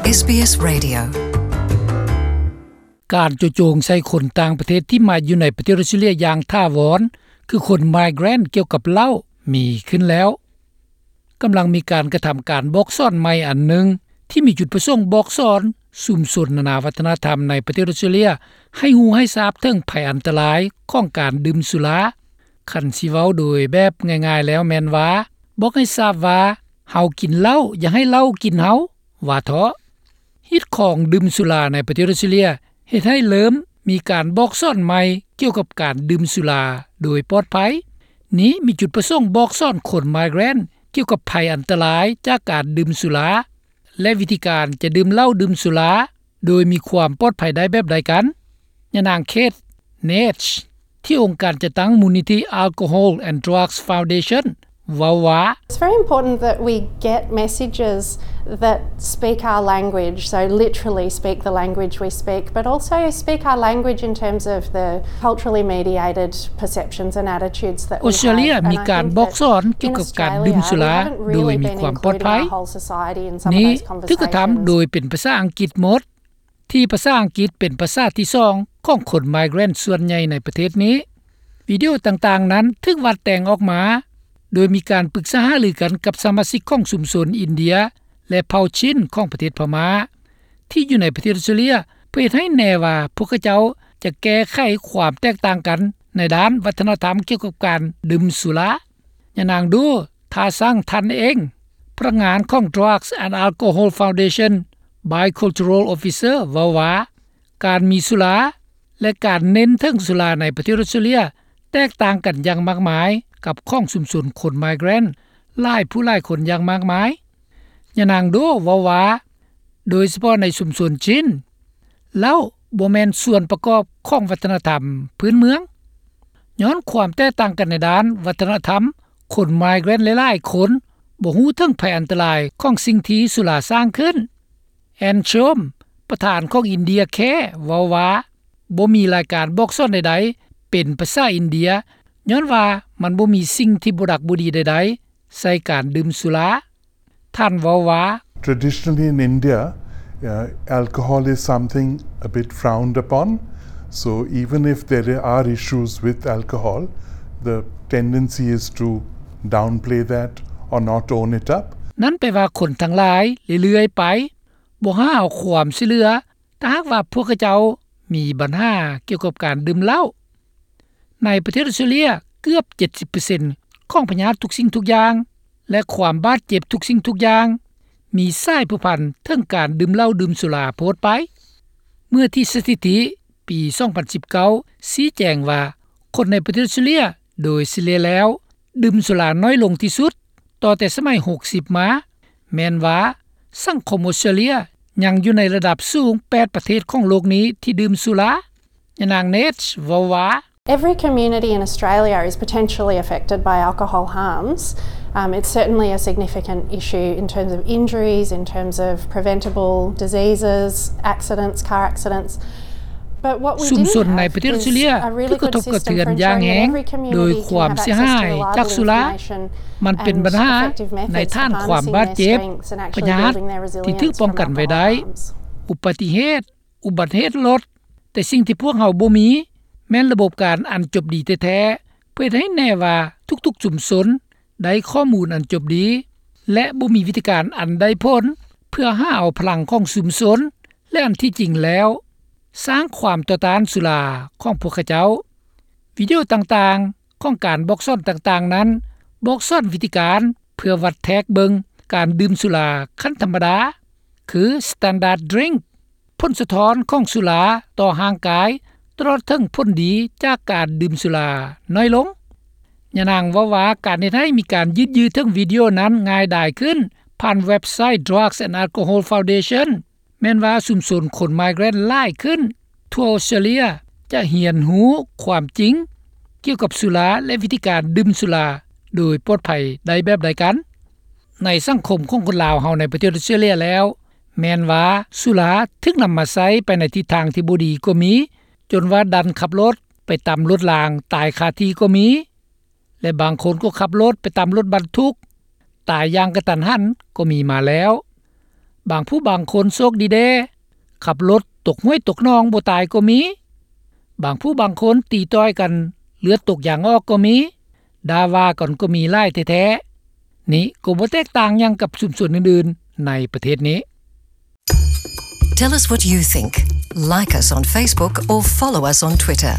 ເອສບີເອສ Radio. ການໂຈະໂຈງໃສ່ຄົນຕ່າງປະເທດທີ່ມາຢູ່ໃນປະເທດອອສເຕຣເລຍຢ່າງຖາວອນ ຄືຄົນ migrant ກ່ຽວກັບເຫຼົ້າ ມີຂຶ້ນແລ້ວ. ກຳລັງມີການກະທຳການບອກສອນໃໝ່ອັນໜຶ່ງ ທີ່ມີຈຸດປະສົງບອກສອນຊຸມຊົນນານາວັດທະນະທຳໃນປະເທດອອສເຕຣເລຍ ໃຫ້ຮູ້ໃຫ້ຊາບເຖິງໄພອັນຕະລາຍຂອງການດື່ມສຸລາ. ຄັນຊິເວົ້າໂດຍແບບງ່າຍໆແລ້ວແມ່ນວ່າ ບອກໃຫ້ຊາບວ່າ ເຮົາກິນເຫຼົ້າ ຢ່າໃຫ້ເຫຼົ້າກິນເຮົາ ວ່າເທາະ. ຮີດຄອງດື່ມສຸລາໃນປະເທດອອສເຕຣເລຍ ເຮັດໃຫ້ເລີ່ມມີການບອກສອນໃໝ່ກ່ຽວກັບການດື່ມສຸລາໂດຍປອດໄພ. ນີ້ມີຈຸດປະສົງບອກສອນຄົນ migrant ກ່ຽວກັບໄພອັນຕະລາຍຈາກການດື່ມສຸລາ ແລະ ວິທີການຈະດື່ມເຫຼົ້າດື່ມສຸລາໂດຍມີຄວາມປອດໄພໄດ້ແບບໃດກັນ. ຍານາງ Kate Nash ທີ່ອົງການຈັດຕັ້ງມູນນິທິ Alcohol and Drugs Foundation ເວົ້າວ່າ It's very important that we get messages that speak our language, so literally speak the language we speak, but also speak our language in terms of the culturally mediated perceptions and attitudes that we have. ອອສເຕຣເລຍມີການບອກສອນກ່ຽວກັບການດື່ມສຸລາໂດຍມີຄວາມປອດໄພ. ນີ້ຖືກກະທຳໂດຍເປັນພາສາອັງກິດໝົດ ທີ່ພາສາອັງກິດເປັນພາສາທີສອງຂອງຄົນ migrant ສ່ວນໃຫຍ່ໃນປະເທດນີ້. ວິດີໂອຕ່າງໆນັ້ນຖືກວາດແຕ່ງອອກມາ ໂດຍມີການປຶກສາຫາລືກັນກັບສະມາຊິກຂອງຊຸມຊົນອິນເດຍ ແລະ ເຜົ່າຊິນຂອງປະເທດພະມ້າ ທີ່ຢູ່ໃນປະເທດອອສເຕຣເລຍ ເພື່ອເຮັດໃຫ້ແນ່ວ່າພວກເຂົາເຈົ້າຈະແກ້ໄຂຄວາມແຕກຕ່າງກັນໃນດ້ານວັດທະນະທຳກ່ຽວກັບການດື່ມສຸລາ. ຍານາງ Doe Tha Sang Thanh Eng ພະນັກງານຂອງ Drugs and Alcohol Foundation Bicultural Officer ເວົ້າວ່າ ການມີສຸລາ ແລະ ການເນັ້ນເຖິງສຸລາໃນປະເທດອອສເຕຣເລຍ ແຕກຕ່າງກັນຢ່າງມາກມາຍກັບຂອງຊຸມຊົນຄົນ migrant ຫຼາຍຜູ້ຫຼາຍຄົນຢ່າງມາກມາຍ. ຍານາງ Doe ເວົ້າວ່າ ໂດຍສະເພາະໃນຊຸມຊົນຊິນ ເຫຼົ້າບໍ່ແມ່ນສ່ວນປະກອບຂອງວັດທະນະທຳພື້ນເມືອງ. ຍ້ອນຄວາມແຕກຕ່າງກັນໃນດ້ານວັດທະນະທຳ, ຄົນ migrant ຫຼາຍໆຄົນບໍ່ຮູ້ເຖິງໄພອັນຕະລາຍຂອງສິ່ງທີ່ສຸລາສ້າງຂຶ້ນ. Ann Chom ປະທານຂອງ India Care ເວົ້າວ່າ ບໍ່ມີລາຍການບອກສອນໃດໆເປັນພາສາອິນເດຍ ຍ້ອນວ່າມັນບໍ່ມີສິ່ງທີ່ບໍ່ດັກບໍ່ດີໃດໆໃສ່ການດື່ມສຸລາ. ທ່ານເວົ້າວ່າ Traditionally in India, uh, alcohol is something a bit frowned upon. So even if there are issues with alcohol, the tendency is to downplay that or not own it up. ນັ້ນແປວ່າຄົນທັງຫຼາຍເລື້ອຍໆໄປ ບໍ່ຫາເອົາຄວາມຊ່ວຍເຫຼືອ ຖ້າຫາກວ່າພວກເຂົາເຈົ້າມີບັນຫາກ່ຽວກັບການດື່ມເຫຼົ້າ. ໃນປະເທດອອສເຕຣເລຍ ເກືອບເຈັດສິບເປີເຊັນຂອງພະຍາດທຸກສິ່ງທຸກຢ່າງ ແລະ ຄວາມບາດເຈັບທຸກສິ່ງທຸກຢ່າງ ມີສາຍພົວພັນເຖິງການດື່ມເຫຼົ້າດື່ມສຸລາໂພດໄປ. ເມື່ອທີ່ສະຖິຕິປີສອງພັນສິບເກົ້າຊີ້ແຈງວ່າ ຄົນໃນປະເທດອອສເຕຣເລຍໂດຍສະເລ່ຍແລ້ວ ດື່ມສຸລານ້ອຍລົງທີ່ສຸດ ຕໍ່ແຕ່ສະໄໝຫົກສິບມາ, ແມ່ນວ່າສັງຄົມອອສເຕຣເລຍຍັງຢູ່ໃນລະດັບສູງແປດປະເທດຂອງໂລກນີ້ທີ່ດື່ມສຸລາ. ຍານາງ Nash ເວົ້າວ່າ Every community in Australia is potentially affected by alcohol harms. Um, it's certainly a significant issue in terms of injuries, in terms of preventable diseases, accidents, car accidents. ຊຸມຊົນໃນປະເທດອອສເຕຣເລຍຖືກກະທົບກະເທືອນຢ່າງແຮງໂດຍຄວາມເສຍຫາຍຈາກສຸລາ. ມັນເປັນບັນຫາໃນຖານຄວາມບາດເຈັບ, ພະຍາດທີ່ຖືກປ້ອງກັນໄວ້ໄດ້, ອຸບັດຕິເຫດ, ອຸບັດເຫດລົດ, ແຕ່ສິ່ງທີ່ພວກເຮົາບໍ່ມີແມ່ນລະບົບການອັນຈົບດີແທ້ໆ ເພື່ອເຮັດໃຫ້ແນ່ວ່າທຸກໆຊຸມຊົນ ໄດ້ຂໍ້ມູນອັນຈົບດີ ແລະ ບໍ່ມີວິທີການອັນໄດ້ຜົນ ເພື່ອຫາເອົາພະລັງຂອງຊຸມຊົນ ແລະ ອັນທີ່ຈິງແລ້ວ ສ້າງຄວາມຕໍ່ຕ້ານສຸລາຂອງພວກເຂົາເຈົ້າ. ວິດີໂອຕ່າງໆຂອງການບອກສອນຕ່າງໆນັ້ນ ບອກສອນວິທີການເພື່ອວັດແທກເບິ່ງການດື່ມສຸລາຂັ້ນທຳມະດາ ຄື Standard Drink, ຜົນສະທ້ອນຂອງສຸລາຕໍ່ຮ່າງກາຍ ຕະຫຼອດເຖິງຜົນດີຈາກການດື່ມສຸລານ້ອຍລົງ. ຍານາງເວົ້າວ່າ ການເຮັດໃຫ້ມີການຢືດເຍື້ອເຖິງວິດີໂອນັ້ນງ່າຍດາຍຂຶ້ນ ຜ່ານເວັບໄຊ Drugs and Alcohol Foundation ແມ່ນວ່າຊຸມຊົນຄົນ migrant ຫຼາຍຂຶ້ນທົ່ວອອສເຕຣເລຍ ຈະຮຽນຮູ້ຄວາມຈິງກ່ຽວກັບສຸລາ ແລະ ວິທີການດື່ມສຸລາໂດຍປອດໄພໄດ້ແບບໃດກັນ. ໃນສັງຄົມຂອງຄົນລາວເຮົາໃນປະເທດອອສເຕຣເລຍແລ້ວ ແມ່ນວ່າສຸລາຖືກນຳມາໃຊ້ໄປໃນທິດທາງທີ່ບໍ່ດີກໍມີ, ຈົນວ່າດັນຂັບລົດໄປຕຳລົດລາງຕາຍຄາທີ່ກໍມີ ແລະ ບາງຄົນກໍຂັບລົດໄປຕຳລົດບັນທຸກຕາຍຢ່າງກະທັນຫັນກໍມີມາແລ້ວ. ບາງຜູ້ບາງຄົນໂຊກດີແດ່ ຂັບລົດຕົກຫ້ວຍຕົກໜອງບໍ່ຕາຍກໍມີ. ບາງຜູ້ບາງຄົນຕີຕ່ອຍກັນເລືອດຕົກຢາງອອກກໍມີ. ດ່າວ່າກັນກໍມີຫຼາຍແທ້ໆ. ນີ້ກໍບໍ່ແຕກຕ່າງຫຍັງກັບຊຸມຊົນອື່ນໆໃນປະເທດນີ້. Tell us what you think. Like us on Facebook or follow us on Twitter.